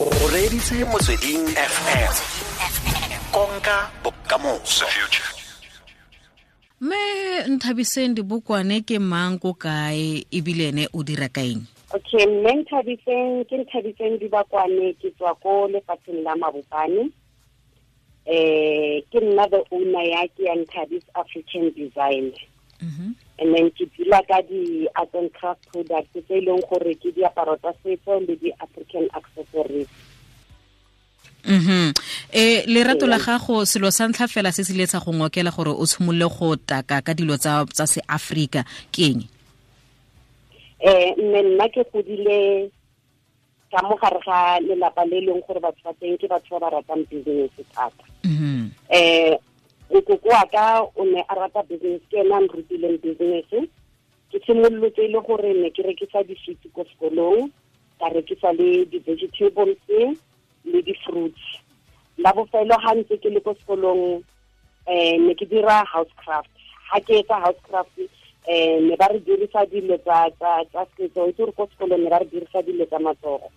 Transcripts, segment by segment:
O reditse Motsweding FM, konka bokamoso. Mme Nthabiseng Dibokwane ke mang, ko kae, ebile ene o dira kaeng? Okay, mme Nthabiseng ke Nthabiseng Dibakwane, ke tswa ko lefatsheng la Mabopane. Ke nna the owner ya ke ya Nthabis African Design. And then ke dula ka di-art and craft products tse e leng gore ke diaparo tsa setso le di-African accessories. Lerato la gago, selo sa ntlha fela se se ile sa go ngokela gore o tshimolole go taka ka dilo tsa se Afrika ke eng? Mme nna ke godile ka mo gare ga lelapa le leng gore batho ba teng ke batho ba ba ratang business thata. Nkoko wa ka o ne a rata business, ke ena a nrutileng business. Ke simolotse e le gore ne ke rekisa di-sweets ko sekolong, ka rekisa le di-vegetables le di-fruits. La bofelo ha ntse ke le ko sekolong, ne ke dira housecraft. Ha ke etsa housecraft, ne ba re dirisa dilo tsa setso, itse gore ko sekolong ne ba re dirisa dilo tsa matsogo.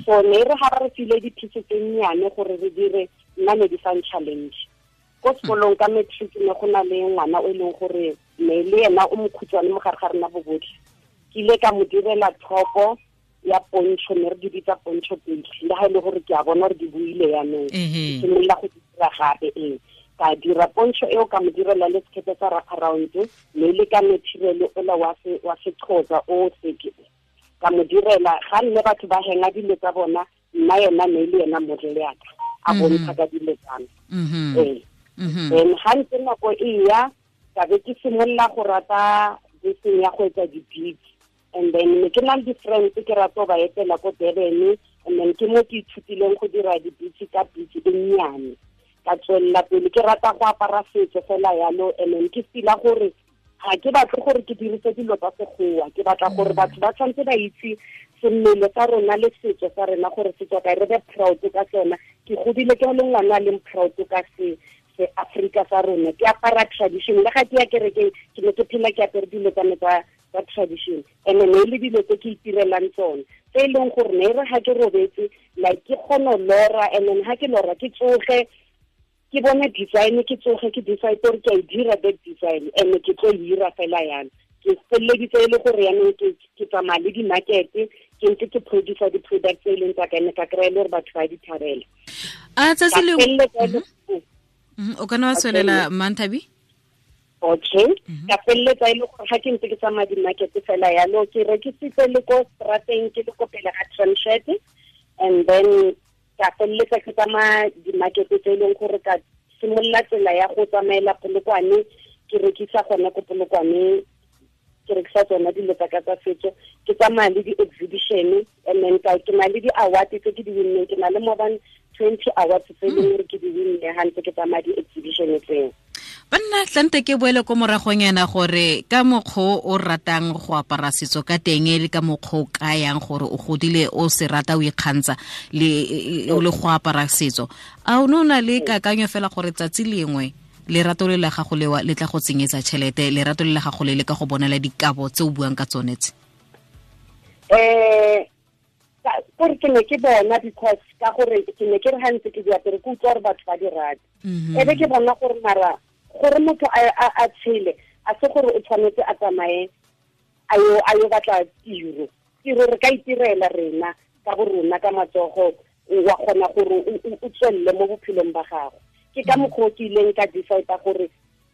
So ne re ha ba re file di-piece tse nnyane gore re dire, nna ne di fang challenge. Ko sekolong ka matric ne go na le ngwana o e leng gore ne le ena o mokhutshwane mo gare ga rena bo botlhe. Ke ile ka mo direla thopo ya poncho, ne re di bitsa poncho pele, le ha e le gore ke a bona gore di buile yanong. Ke simolola go di dira gape, ee. Ka dira poncho eo, ka mo direla le sekete sa wraparound, ne le ka material ola wa Sexhosa o seke. Ka mo direla, ga nne batho ba henga dilo tsa bona, nna yena ne le yena model ya ka, a bontsha ka dilo tsa me. Ee. Then ga ntse nako e ya, ka be ke simolola go rata beseng ya go etsa di-beads. And then ne ke na le di-friends ke rata go ba etela ko Durban, and then ke mo ke ithutileng go dira di-beads ka beads e nnyane. Ka tswelela pele ke rata go apara setso fela yalo, and then ke feel-a gore ga ke batle gore ke dirise dilo tsa sekgowa, ke batla gore batho ba tshwanetse ba itse semmele sa rona le setso sa rena gore se tswa kae, re be proud ka sona. Ke godile ke le ngwana a leng proud ka se Afrika sa rona, ke apara tradition. Le ga ke ya kerekeng ke ne ke phela ke apere dilo tsa me tsa tradition, and ne le dilo tse ke itirelang tsone, tse e leng gore ne re ga ke robetse, like ke kgona ho lora, and then ha ke lora ke tsoge ke bone design, ke tsoge ke decide gore ke a e dira that design, and ke tlo e dira fela yana. Ke feleleditse e le gore yanong ke tsamaya le di-market, ke ntse ke producer di-product tse e leng tsa ka, ene ka kry-a le gore batho ba di thabela. A tsatsi Ka le feleletsa e le O ka nna wa tswelela, Manthabi? Okay. Ka feleletsa e le gore ga ke ntse ke tsamaya di-market fela yalo, ke rekisitse le ko strateng, ke le ko pele ga Tramshed, and then ka feleletsa ke tsamaya di-market tse e leng gore ka simolola tsela ya go tsamaela Polokwane, ke rekisa gona ko Polokwane, ke rekisa tsona dilo tsa ka tsa setso, ke tsamaya le di-exhibition, and then ke na le di-award tse ke di win-neng, ke na le more than 20 awards tse e leng gore ke di win-ne ha ntse ke tsamaya di-exhibition tseo. Banna, tlante ke boele ko moragong yana gore ka mokgwa o ratang go apara setso ka teng, le ka mokgwa o kayang gore o godile o se rata o ikgantsha le go apara setso, a o ne o na le kakanyo fela gore tsatsi lengwe lerato le la gago lewa le tla go tsenyetsa tšhelete, lerato le la gago le le ka go bonela dikabo tse o buang ka tsone tse? Gore ke ne ke bona, because ka gore ke ne ke re ha ntse ke di apere, ke utlwa gore batho ba di rata. E be ke bona gore mara gore motho a tshele, a se gore o tshwanetse a tsamaye a yo batla tiro. Tiro re ka itirela rena ka bo rona ka matsogo, wa kgona gore o tswelele mo bophelong ba gago. Ke ka mokgwa o ke ileng ka decide gore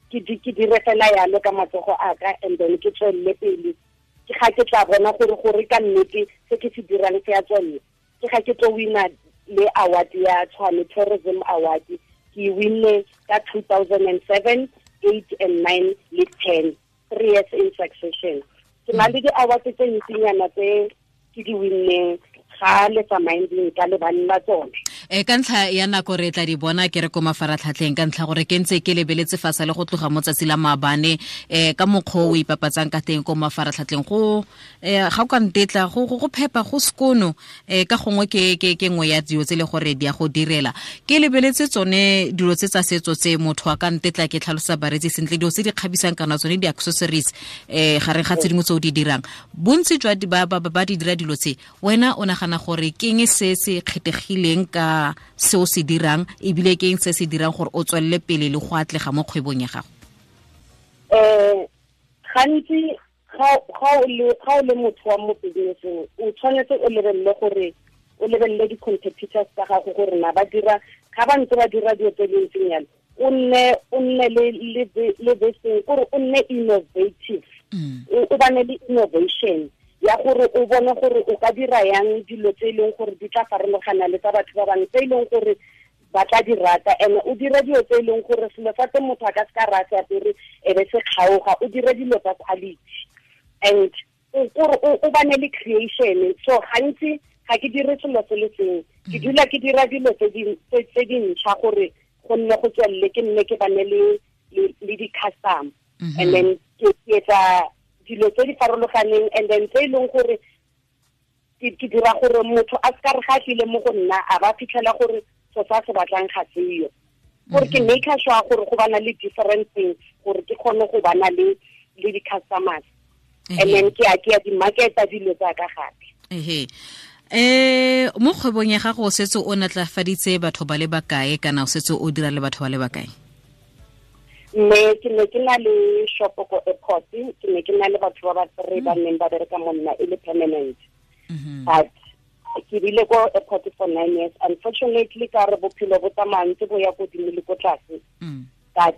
ke dire fela yalo ka matsogo a ka, and then ke tswelele pele. Ke ga ke tla bona gore ka nnete se ke se dirang se a tswella. Ke ga ke tlo wina le award ya Tshwane Tourism Award, ke winne ka 2007, 8 and 9 le 10, 3 years in succession. Ke na le di-award tse ntsinyana tse ke di winneng ga le tsamaeng ka lebaneng la tsone. Ka ntlha ya nako re tla di bona ke re ko mafaratlhatlheng, ka ntlha gore ke ntse ke lebeletse fa sa le go tloga mo tsatsi la maabane, ka mokgwa o ipapatsang ka teng ko mafaratlhatlheng, go ga o ka ntetla go phepa go sekono, ka gongwe ke nngwe ya dilo tse le gore di a go direla. Ke lebeletse tsone dilo tse tsa setso tse motho a ka ntetla ke tlhalosa bareetsi sentle, dilo tse di kgabisang kana tsone di-accessories, gareng ga tse dingwe tse o di dirang. Bontsi jwa ba di dira dilo tse, wena o nagana gore ke eng se se kgethegileng ka se o se dirang, ebile ke eng se se dirang gore o tswelele pele le go atlega mo kgwebong ya gago? Gantsi ga o le motho wa mo businesseng, o tshwanetse o lebelele gore o lebelele di-competitors tsa gago gore na ba dira, ga ba ntse ba dira dilo tse di ntseng jalo, o nne le this thing, gore o nne innovative, o bane le innovation ya gore o bone gore o ka dira yang dilo tse e leng gore di tla farologana le tsa batho ba bangwe, tse e leng gore ba tla di rata. And o dire dilo tse e leng gore selo sa teng motho a ka se ka ra se apere e be se kgaoga, o dire dilo tsa quality and gore o bane le creation. So gantsi ga ke dire selo se le sengwe, ke dula ke dira dilo tse dintšha gore go nne go tswelele, ke nne ke bane le di-customer, and then ke etsa dilo tse di farologaneng, and then tse e leng gore ke dira gore motho a se ka re ga tlile mo go nna a ba fitlhela gore so sa se batlang ga seyo. Gore ke make sure gore go bana le different things, gore ke kgone go bana le di-customers, and then ke a di-marketa dilo tsa ka gape. Mo kgwebong ya gago o setse o natlafaditse batho ba le bakae, kana o setse o dira le batho ba le bakae? Mme ke ne ke na le shop ko airport, ke ne ke na le batho ba ba three ba neng ba bereka mo nna e le permanent. But ke bile ko airport for 9 years. Unfortunately, ka re bophelo bo tsamaya ntse bo ya godimo le ko tlase. Ka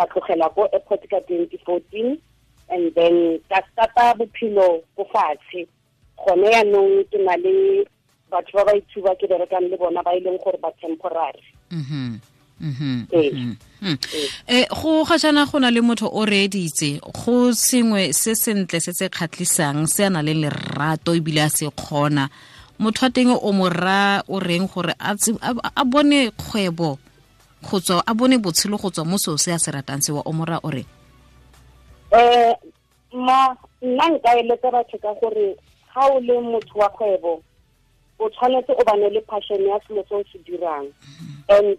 tlogela ko airport ka 2014, and then ka starta bophelo ko fatshe. Gone yaanong ke na le batho ba ba ithuba ke berekang le bona ba e leng gore ba temporary. Go ga jaana go na le motho o reeditse go sengwe se sentle se se kgatlhisang se a na le lerato ebile a se kgona, motho wa teng o mo raya o reng gore a bone kgwebo go tswa, a bone botshelo go tswa mo seo se a se ratang sewa, o mo raya o reng? Ma nna nka eletsa batho ka gore ga o le motho wa kgwebo o tshwanetse o bane le passion ya selo se o se dirang, and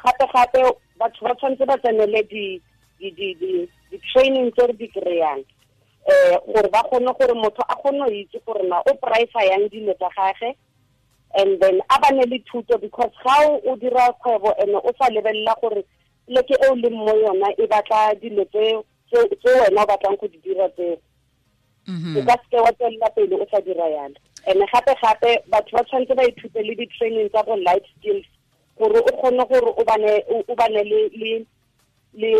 gape batho ba tshwanetse ba tsenele di-training tse re di kry-ang, gore ba kgone gore motho a kgone go itse gore na o price yang dilo tsa gage, and then a bane le thuto, because ga o dira kgwebo and o sa lebelela gore pleke e o leng mo yona e batla dilo tse wena o batlang go di dira tseo, o ka seke wa tswelela pele o sa dira yalo. And gape batho ba tshwanetse ba ithute le di-training tsa bo life skills, gore o kgone gore o bane le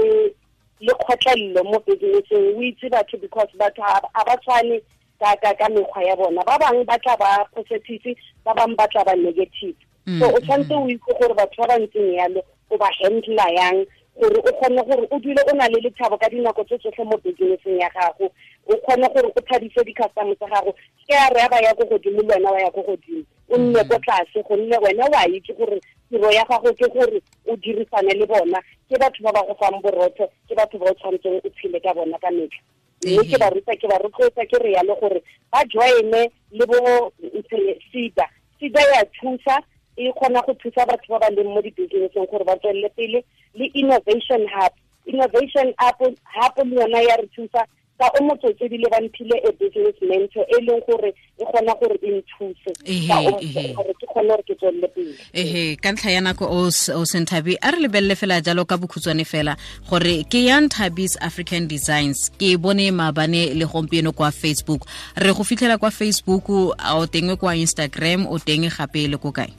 kgotlelelo mo businesseng, o itse batho, because batho ga ba tshwane ka mekgwa ya bona. Ba bangwe ba tla ba positive, ba bangwe ba tla ba negative. So o tshwanetse o itse gore batho ba ba ntseng yalo o ba handla yang, gore o kgone gore o dule o na le lethabo ka dinako tse tsotlhe mo businesseng ya gago, o kgone gore o thabise di-customer tsa gago. Ke a re ba ya ko godimo le wena wa ya ko godimo, o nne ko tlase, gonne wena wa itse gore tiro ya gago ke gore o dirisane le bona, ke batho ba ba go fang borotho, ke batho ba o tshwanetseng o tshele ka bona ka metlha. Mme ke ba ruta, ke ba rotloetsa ke re yalo gore ba joine le bo SEDA. SEDA ya thusa, e kgona go thusa batho ba ba leng mo di-businesseng gore ba tswelele pele, le Innovation Hub. Innovation Hub le yona ya re thusa ka o motsotso ebile ba mphile a business mentor e leng gore e kgona gore e nthuse gore ke kgone gore ke tswelele pele. Ka ntlha ya nako o Senthabi, a re lebelele fela jalo ka bokhutshwane fela gore ke yang Thabi's African Designs, ke bone maabane le gompieno kwa Facebook. Re go fitlhela kwa Facebook, o teng kwa Instagram, o teng gape le ko kae?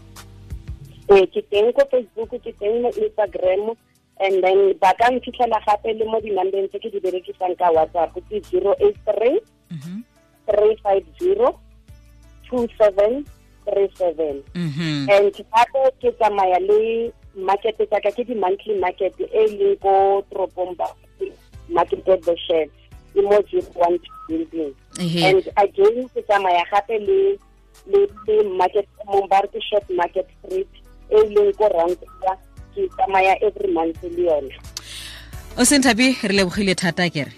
Ke teng ko Facebook, ke teng mo Instagram, and then ba ka nfitlhela gape le mo di-numbeng tse ke di berekisang ka WhatsApp, ke 083 350 2737. And gape ke tsamaya le market tsaka, ke di-monthly market e leng ko toropong ba market at the shed, e mo 012 building. And again ke tsamaya gape le Le market mong ba re ke Short Market Street e leng ko Rankuwa, ke tsamaya every month le yone. O Senthabi, re lebogile thata kere.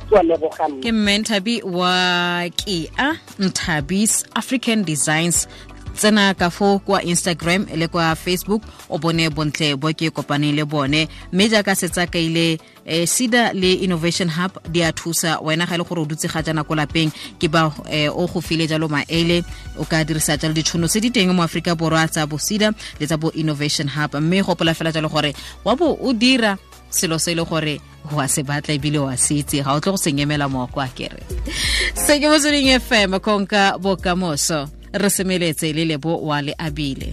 Ke a leboga Ke mme Nthabi wa Kea Nthabis African Designs. Tsena ka fo kwa Instagram le kwa Facebook, o bone bontle bo ke kopaneng le bone. Mme jaaka setsa kaile, SEDA le Innovation Hub di a thusa wena ga e le gore o dutse ga jana ko lapeng, ke ba o go file jalo maele, o ka dirisa jalo ditšhono tse di teng mo Aforika Borwa tsa bo SEDA le tsa bo Innovation Hub. Mme gopola fela jalo gore wa bo o dira selo se e le gore wa se batla ebile wa se itse, ga o tle go se nyemela mooko a kere. Se ke Motsweding FM, konka bokamoso. Re semeletse le Lebo wa le abile.